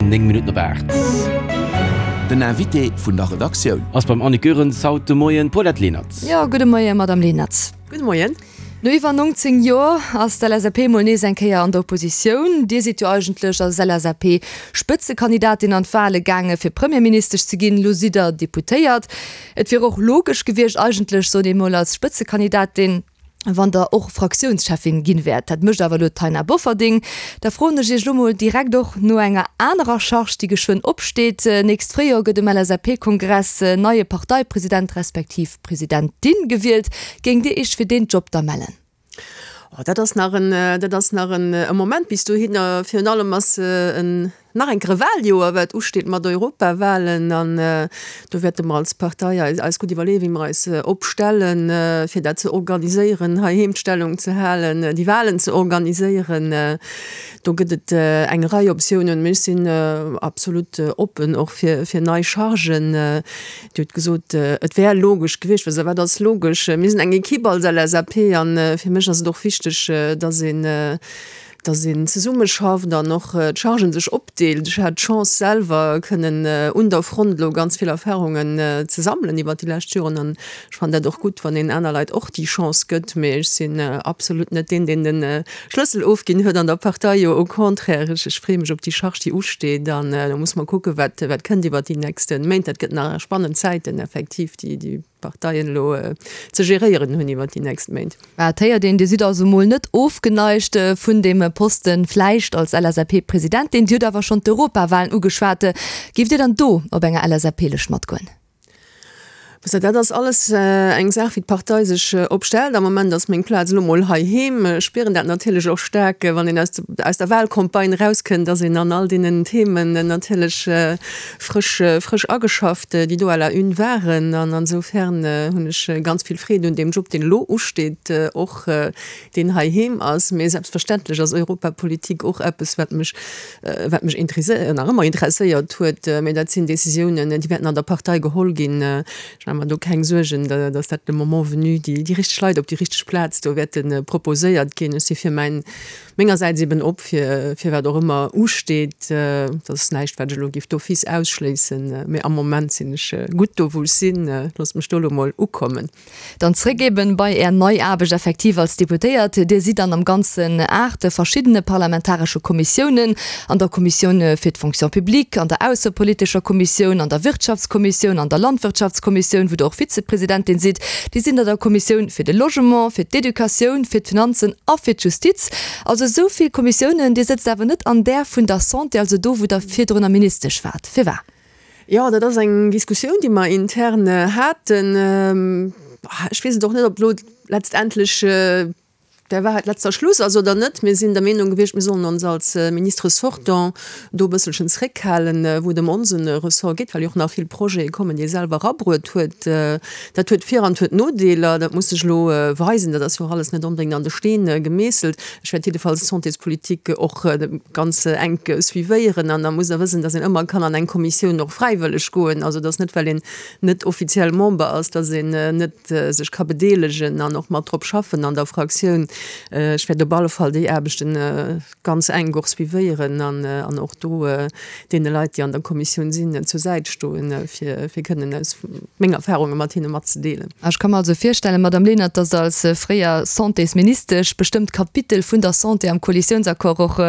9 Minutten op 8. Den Invité vun der Redaktioun. Ass beim Annick Goerens haut de Moien d'Paulette Lenert. Jo, gudde Moien, Madamm Lenert. Gudde Moien. No iwwer 19 Joer ass d'LSAP mol nees eng Kéier an der Oppositioun. Dir sidd jo eigentlech als LSAP-Spëtzekandidatin an d'Wale gaange fir Premierministesch ze ginn. Lo sidd der Deputéiert. Et wier och logesch gewiescht eigentlech, sot ee mol, als Spëtzekandidatin, wann der och Fraktiounscheffin ginn wäert. Dat mécht awer elo d'Taina Bofferding. Da froen ech Iech elo mol direkt och no enger anerer Charge, déi geschwënn opsteet. Nächst Fréijoer gëtt um LSAP-Kongress en neie Parteipresident respektiv Presidentin gewielt. Géingt Dir Iech fir deen Job da mellen? Oh, dat ass nach en, dat ass nach en Moment bis dohinner. Virun allem ass en Nach eng Kéier e Wahljoer, wat usteet mat Europawahlen. An do wäerte mer als Partei eis gutt iwwerleeën, wéi mer eis opstellen, fir dat ze organiséieren, heiheem d'Stellung ze halen, déi Wahlen ze organiséieren. Do gëtt et eng Rei Optiounen. Mee ech sinn absolut oppen och fir nei Chargen. Dir hutt gesot, et wär logesch gewiescht. Wat ass logesch? Mir sinn eng Ekipp als LSAP a fir mech ass et och wichteg, dass een, dass een zesummeschafft an och d'Chargen sech opdeelt. Ech hat d'Chance selwer kënnen un der Front elo ganz vill Erfahrungen ze sammelen iwwert déi lescht Joren an ech fannen dat och gutt, wann een aner Leit och déi Chance gëtt. Mee ech sinn absolut net deen, deen de Schlëssel ofginn huet an der Partei, jo au contraire, ech ech freeë mech op déi Charge, déi usteet an da muss mer kucken, wat wat kënnt iwwert déi nächste Méint. Dat gëtt nach spannend Zäiten effektiv, déi déi Parteien elo ze geréieren hunn iwwert déi nächst Méint. Mä et héiert een, Dir sidd also mol net ofgeneigt vun deem Posten, vläicht als LSAP-Presidentin. Dir hutt awer schonn d'Europawahlen ugeschwat. Géift Dir dann do op enger LSAP-Lëscht matgoen? Dat ass alles eng Saach, wéi d'Partei sech opstellt. Am Moment ass meng Plaz elo mol heiheem. Ech spieren dat natierlech och staark, wann een aus der Wahlcampagne erauskënnt, dass een an all deenen Themen natierlech frësch, frësch ageschafft, déi do à la une waren. An ansoufern hunn ech ganz vill Freed un deem Job, deen elo usteet, och deen heiheem ass. Mee selbstverständlech ass Europapolitik och eppes, wat mech, wat mech interesséiert, nach ëmmer interesséiert huet. Mee dat sinn Décisiounen, déi wäerten an der Partei geholl ginn. Ech maache mer do keng Suergen, datt dat le moment venu déi, déi richteg Leit op déi richteg Plaz do wäerte proposéiert ginn. Ech si fir mäin Mengersäits eben op fir fir wat och ëmmer usteet. Dat ass näischt, wat ech elo géif d'office ausschléissen, mee am Moment sinn ech gutt do, wou ech sinn. Loosst mech do elo mol ukommen. Dann zréck eben bei Är nei Aarbecht effektiv als Deputéiert. Dir sidd dann am Ganzen 8 verschiddene parlamentaresche Kommissiounen, an der Kommissioun fir d'Fonction publique, an der aussepolitescher Kommissioun, an der Wirtschaftskommissioun, an der Landwirtschaftskommissioun, wou Der och Vizepresidentin sidd. Dir sidd an der Kommissioun fir de Logement, fir d'Educatioun, fir d'Finanzen a fir d'Justiz. Also esou vill Kommissiounen. Dir sëtzt awer net an där vun der Santé, also do, wou Der virdrunner Ministesch waart. Firwat? Jo, dat ass eng Diskussioun, déi mer intern haten. Ech weess et och net, ob elo letztendlech der Wahrheit letzter Schluss ass oder net. Mir sinn der Meenung gewiescht, mir sollen ons als Ministre sortant do e bësselchen zréckhalen, wou et ëm onse Ressort geet, well jo och nach vill Projete kommen, déi e selwer erabruet huet. Dat huet Vir an huet Nodeeler, dat muss sech elo weisen. Dat ass jo och alles net onbedéngt an de Steen gemeesselt. Ech wäert jiddefalls d'Santéspolitik och ganz enk suivéieren an da muss Der wëssen, dass een ëmmer kann an eng Kommissioun och fräiwëlleg goen. Also et ass net, well een net offiziell Member ass, dass een net sech ka bedeelegen an och mat drop schaffen an der Fraktioun. Ech wäert op alle Fall déi Aarbechten ganz enk och suivéieren an och do deene Leit, déi an der Kommissioun sinn, zur Säit stoen, fir kënnen aus meng Erfahrunge mat hinne matzedeelen. Ech ka mer also virstellen, Madame Lenert, dass Der als fréier Santésministesch bestëmmt Kapitel vun der Santé am Koalitiounsaccord och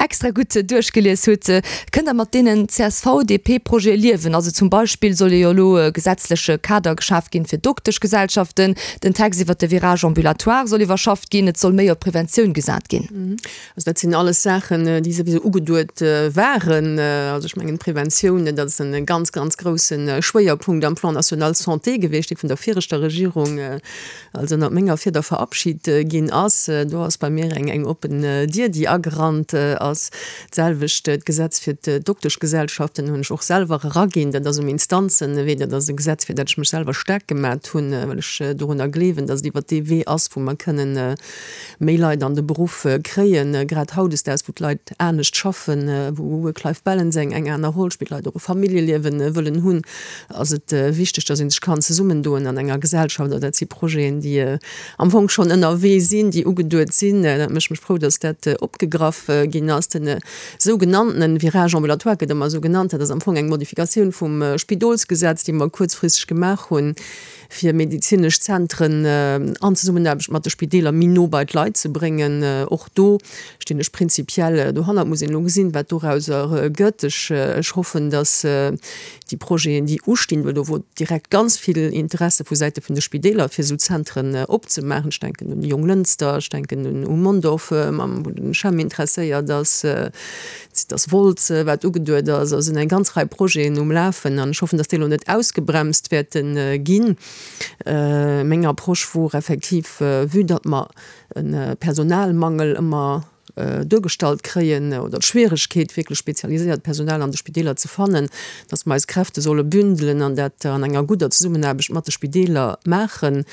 extra gutt duerchgelies hutt. Kënnt Der mat deenen CSV-DP-Projete liewen? Also zum Beispill soll jo elo e gesetzleche Kader geschaf ginn fir Dokteschgesellschaften, den Text iwwert de Virage ambulatoire soll iwwerschafft ginn, et soll méi op Preventioun gesat ginn. Also dat sinn alles Saachen, déi souwisou ugeduet waren. Also ech mengen d'Preventioun, dat ass e ganz, ganz grousse Schwéierpunkt am Plan national santé gewiescht, dee vun der viregter Regierung, also ënnert menger Fieder verabschit ginn ass. Do ass bei mir eng oppen Dier, déi agerannt ass. D'selwecht d'Gesetz fir d'Dokteschgesellschaften hunn ech och selwer eraginn. Dat ass um Instanzenwee. Dat ass e Gesetz, fir dat ech mech selwer staark gemat hunn, well ech dorunner gleewen, datt et iwwert dee Wee ass, wou mer kënnen. méi Leit an de Beruff kréien, grad hautdesdaags, wou d'Leit anescht schaffen, wou Work-Life-Balance eng eng aner Roll spillt, Leit och e Familljeliewen wëllen hunn, ass et wichteg, dass ee sech kann zesummendoen an enger Gesellschaft. A dat si Projeten, déi am Fong schonn ënnerwee sinn, déi ugeduet sinn. Dat mécht mech frou, dass dat opgegraff ginn ass. Den sougenanntenen Virage ambulatoire gëtt ëmmer esou genannt, dat ass am Fong eng Modifikatioun vum Spidolsgesetz, déi mer kuerzfristeg gemaach hunn, fir medezinesch Zentren an Zesummenaarbecht mat de Spideeler méi no bei d'Leit ze bréngen. Och do stinn ech prinzipiell dohannert. Muss een elo gesinn, wat dorauser gëtt. Ech hoffen, datt déi Projeten, déi ustinn, well do wor direkt ganz vill Interesse vu Säite vun de Spideeler, fir esou Zentren opzemaachen, ech denken un Jonglënster, ech denken un u Mondorf, wou den CHEM interesséiert ass, Et ass Wolz, wat ugeduet ass. Also sinn eng ganz Rei Projeten um Lafen an ech hoffen, datt déi elo net ausgebremst wäerte ginn. Meng Approche wor effektiv, vue datt mer e Personalmangel ëmmer duergestallt kréien oder d'Schwieregkeet, wierklech spezialiséiert Personal an de Spideeler ze fannen, datt mer eis Kräfte solle bündelen an dat an enger gudder Zesummenaarbecht mat de Spideeler maachen.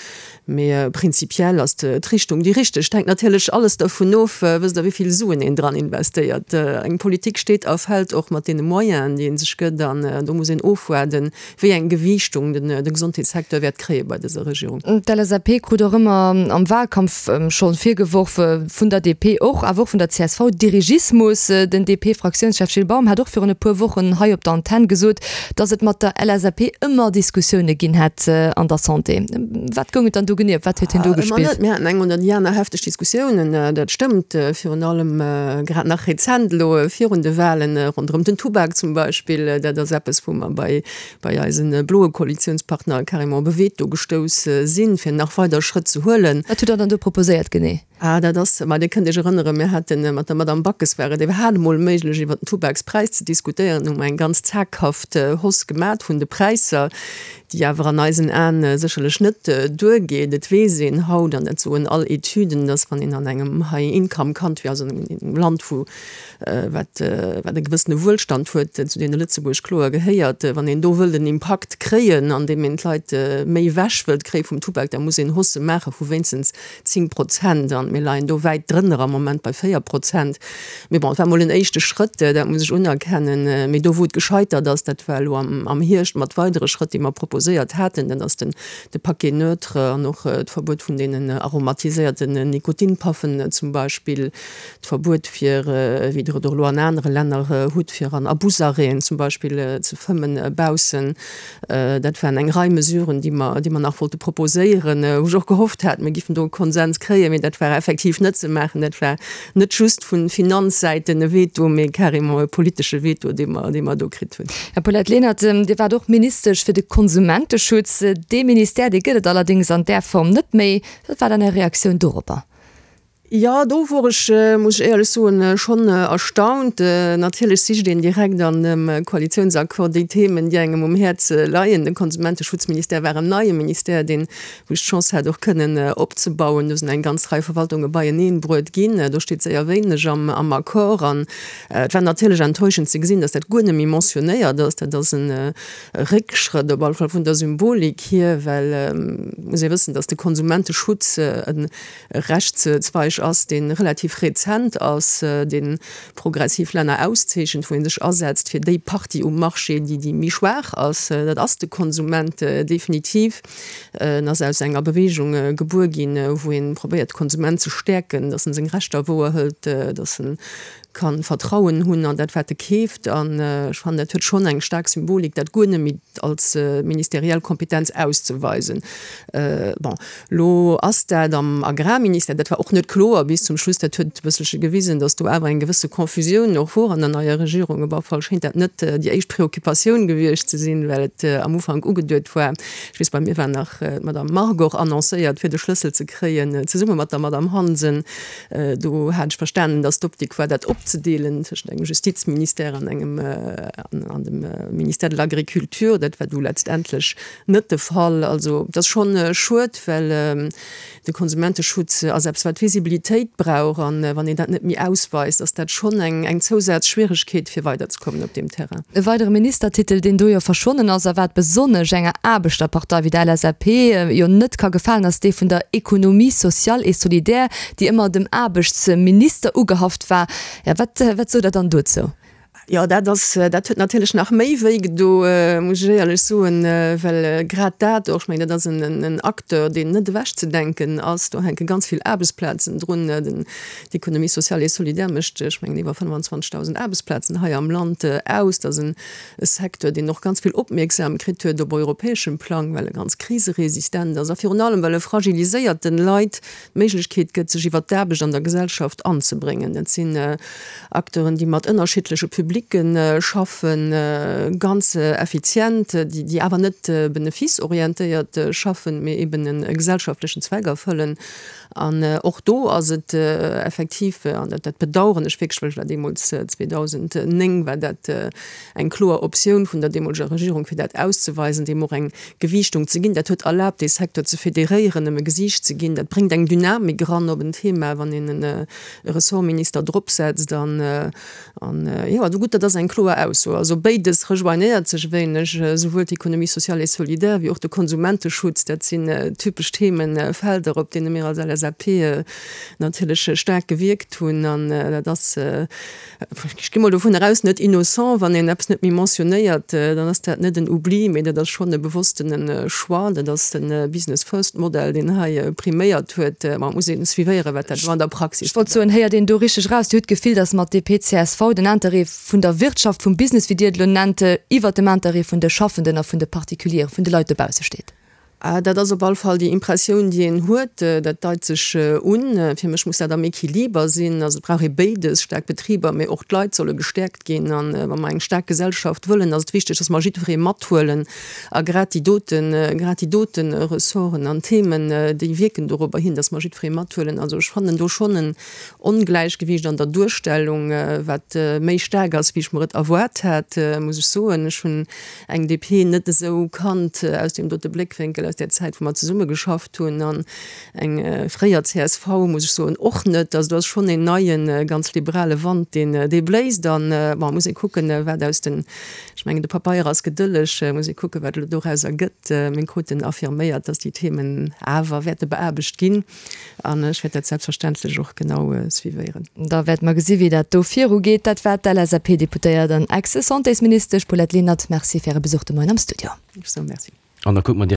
Mee prinzipiell ass d'Richtung déi richteg. Et hänkt natierlech alles dervun of, wësst Der, wéi vill Suen een dran investéiert. Eng Politik steet a fält och mat deene Moyenen, déi ee sech gëtt. An do muss een ofwaarden, wéi eng Gewiichtung de Gesondheetssecteur wäert kréie bei dëser Regierung. D'LSAP krut och ëmmer am Wahlkampf scho virgeworf, vun der DP och, awer och vun der csv, Dirigismus. Den DP-Fraktiounschef Gilles Baum hat och virun e puer Wochen hei op der Antenn gesot, Datt et mat der LSAP ëmmer Diskussioune ginn hätt an der Santé. Wat goung et dann do genee? Op wat huet hien do Ëmmer gespillt? net. Mir haten eng oder déi aner hefteg Diskussiounen, dat stëmmt. Virun allem grad nach rezent elo virun de Wahlen, ronderëm den Tubak zum Beispill. Dat ass eppes, wou mer bei, bei eise bloe Koalitiounspartner carrément op e Veto gestouss sinn, fir nach weider Schrëtt ze huelen. Wat hutt Der dann do proposéiert genee? Ah, dat ass, ma Dir kënnt Iech erënneren, mir hate mat der Madame Backes war et iwwerhaapt emol méiglech iwwert den Tubakspräis ze diskutéieren, hu mer eng ganz zaghaft Hausse gemat vun de Präisser, déi awer an eisen Aen sécherlech net duergeet. Et weess een haut, an dat soen all Etüden, dass wann een an engem High-Income Country, also an engem Land wou wat wat e gewëssene Wuelstand huet, zu deene Lëtzebuerg kloer gehéiert, wann een do wëllt en Impakt kréien, andeem een d'Leit méi ewech wëllt kréie vum Tubak, da muss een Haussë maache vu wéinstens 10 Prozent an mir leien do wäit drënner am Moment bei 4 Prozent. Mee bon, et war mol en éischte Schrëtt, dat muss ech unerkennen. Mee do wou et gescheitert ass, dat war elo am Hierscht mat weidere Schrëtt, déi mer proposéiert haten, dat ass den de Paquet neutre an och d'Verbuet vun deenen aromatiséierten Nikotinpaffen zum Beispill, d'Verbuet fir, wéi Der et och elo an anere Länner hutt, fir an Abusarrêten zum Beispill ze fëmmen baussen. Dat waren eng Rei Mesuren, déi mer, déi mer nach wollte proposéieren, wou ech och gehofft hat, mir giffen do e Konsens kréien. Mee dat war effektiv net ze maachen. Dat war net just vu Finanzsäiten e Veto, mee carrément e politesche Veto, dee mer, dee mer do kritt hunn. Här Paulette Lenert, Dir waart och Ministesch fir de Konsumenteschutz. Dee Ministère, dee gëtt et allerdéngs an där Form net méi. Wat war dann Är Reaktioun doropper? Jo, do wor ech, muss ech éierlech soen, schonn erstaunt. Natierlech sicht een direkt an dem Koalitiounsaccord déi Themen, déi engem um Häerz leien. De Konsumenteschutzministère war en neie Ministère, deen, wou ech d'Chance hat, och kënnen opzebauen. Do sinn eng ganz Rei Verwaltunge beieneen bruet ginn. Do steet séier wéineg am Accord. An et war natierlech enttäuschend ze gesinn, dass dat guer net méi mentionnéiert ass. Dat ass e Réckschrëtt, op alle Fall vun der Symbolik hier, well et muss ee wëssen, dass de Konsumenteschutz e e Rechtszweig ass, dee relativ rezent ass, dee progressiv Länner auszeechent, wou ee sech asetzt fir déi Partie um Marché, déi déi méi schwaach ass. Dat ass de Konsument definitiv. En ass aus enger Bewegung gebuer ginn, wou ee probéiert, de Konsument ze stäerken, datt en seng Rechter wouerhëlt, datt en ka Vertrauen hunn an dat, wat e keeft. An ech fannen, dat huet schonn eng staark Symbolik, dat guer net méi als ministeriell Kompetenz auszeweisen. Bon, elo ass dat am Agrarministère, dat war och net kloer bis zum Schluss, dat huet e bësselche gewisen, datt do awer eng gewësse Confusioun och wor an der neier Regierung. Op alle Fall schéint dat net déi éischt Preoccupatioun gewiescht ze sinn, well et am Ufank ugeduet war, ech weess, bei mir war nach d'Madame Margue och annoncéiert, fir de Schlëssel ze kréien, zesumme mat der Madame Hansen. Do hat ech verstanen, datt d'Optik war, dat op. opzedeelen tëschent engem Justizministère an engem an dem Ministère de l'Agriculture. Dat war du letztendlech net de Fall. Also et ass schonn schued, well de Konsumenteschutz ass eppes, wat Visibilitéit brauch, a wann een dat net méi ausweist, ass dat schonn eng Zousazschwieregkeet, fir weiderzekommen op deem Terrain. E weidere Ministertitel, deen do jo verschwonnen ass a wat besonnesch enger Aarbechterpartei wéi der LSAP jo net ka gefalen, ass dee vun der Économie sociale et solidaire, déi ëmmer dem Aarbechtsminister ugehaft war. Jo, wat, wat sot Der dann dozou? Jo, dat ass, dat huet natierlech nach méi wéi gedo, muss ech éierlech soen, well grad dat och, ech mengen, dat ass en Acteur, deen net ewechzedenken ass. Do hänke ganz vill Aarbechtsplazen drun. Den, d'Économie sociale et solidaire mécht, ech mengen, iwwer 25.000 Aarbechtsplazen hei am Land aus. Dat ass e Secteur, deen och ganz vill Opmierksam kritt huet op europäeschem Plang, well e ganz kriseresistent ass a virun allem, well e fragiliséierten Leit d'Méiglechkeet gëtt, sech iwwert d'Aarbecht an der Gesellschaft anzebréngen. Dat sinn Acteuren, déi mat ënnerschiddleche Publicke schaffen, ganz effizient, déi awer net benefice-orientéiert schaffen, mee eben e gesellschaftlechen Zweck erfëllen. An och do ass et effektiv, an dat bedauern ech wierklech, well ech war deemools, 2009 war dat eng kloer Optioun vun der deemoleger Regierung, fir dat auszeweisen, deem och eng Gewiichtung ze ginn. Dat huet erlaabt, dee Secteur ze federéieren, em e Gesiicht ze ginn. Dat bréngt eng Dynamik eran op en Thema, wann een e Ressortminister dropsetzt. An, an jo, also gutt, dat ass eng kloer Ausso. Also béides rejoignéiert sech e wéineg, esouwuel d'Économie sociale et solidaire wéi och de Konsumenteschutz. Dat sinn typesch Themefelder, op deene mir als LSAP natierlech staark gewierkt hunn. An dat ass, Ech gi mol dovun eraus, net innocent. Wann een eppes net méi mentionnéiert, dann ass dat net en Oubli, mee dat ass schonn e bewosstene Choix. Dat ass de Business First Modell, deen hei priméiert huet. Ma et muss een suivéieren, wat dat elo an der Praxis Ech wollt soen, héiert een do richteg eraus, Dir hutt d'Gefill, datt mat DP, csv den Interêt vun der Wirtschaft, vum Business, wéi Dir et elo nennt, iwwert dem Interêt vun de Schaffenden a vun de Particulieren, vun de Leit dobausse steet? Dat ass op all Fall déi Impressioun, déi een huet. Dat deit sech un. Fir mech muss dat am Equiliber sinn. Also et brauch ee béides, staark Betriber, mee och d'Leit solle gestäerkt ginn. A wa mer eng staark Gesellschaft wëllen, ass et wichteg, datt mer jiddweree mathuelen. A grad déi doten, grad déi dote Ressorten an Themen, déi wierken dorobber hin, datt mer jiddweree mathuelen. Also ech fannen do schonn en Ongläichgewiicht an der Duerstellung, wat méi staark ass, wéi ech mer et erwaart hat, muss ech soen. Ech hunn eng DP net esou kannt aus deem dote Bléckwénkel, aus där Zäit, wou mer zesumme geschafft hunn, an eng fréier csv, muss ech soen, och net. Also do ass schonn een neien, ganz liberale Wand, deen, dee bléist. An, bon, muss ee kucken, wat aus den, ech mengen, de Papeier ass gedëlleg, muss ee kucken, wat elo dorauser gëtt. Mir kruten affirméiert, dass déi Themen awer wäerte beaarbecht ginn. An ech wäert dat selbstverständlech och genau suivéieren. Da wäerte mer gesi wéi dat do virugeet. Dat war d'LSAP-Deputéiert an Ex-Santésministesch Paulette Lenert. Merci fir Äre Besuch de Moien am Studio. Ech soe Merci. An da kucke mer.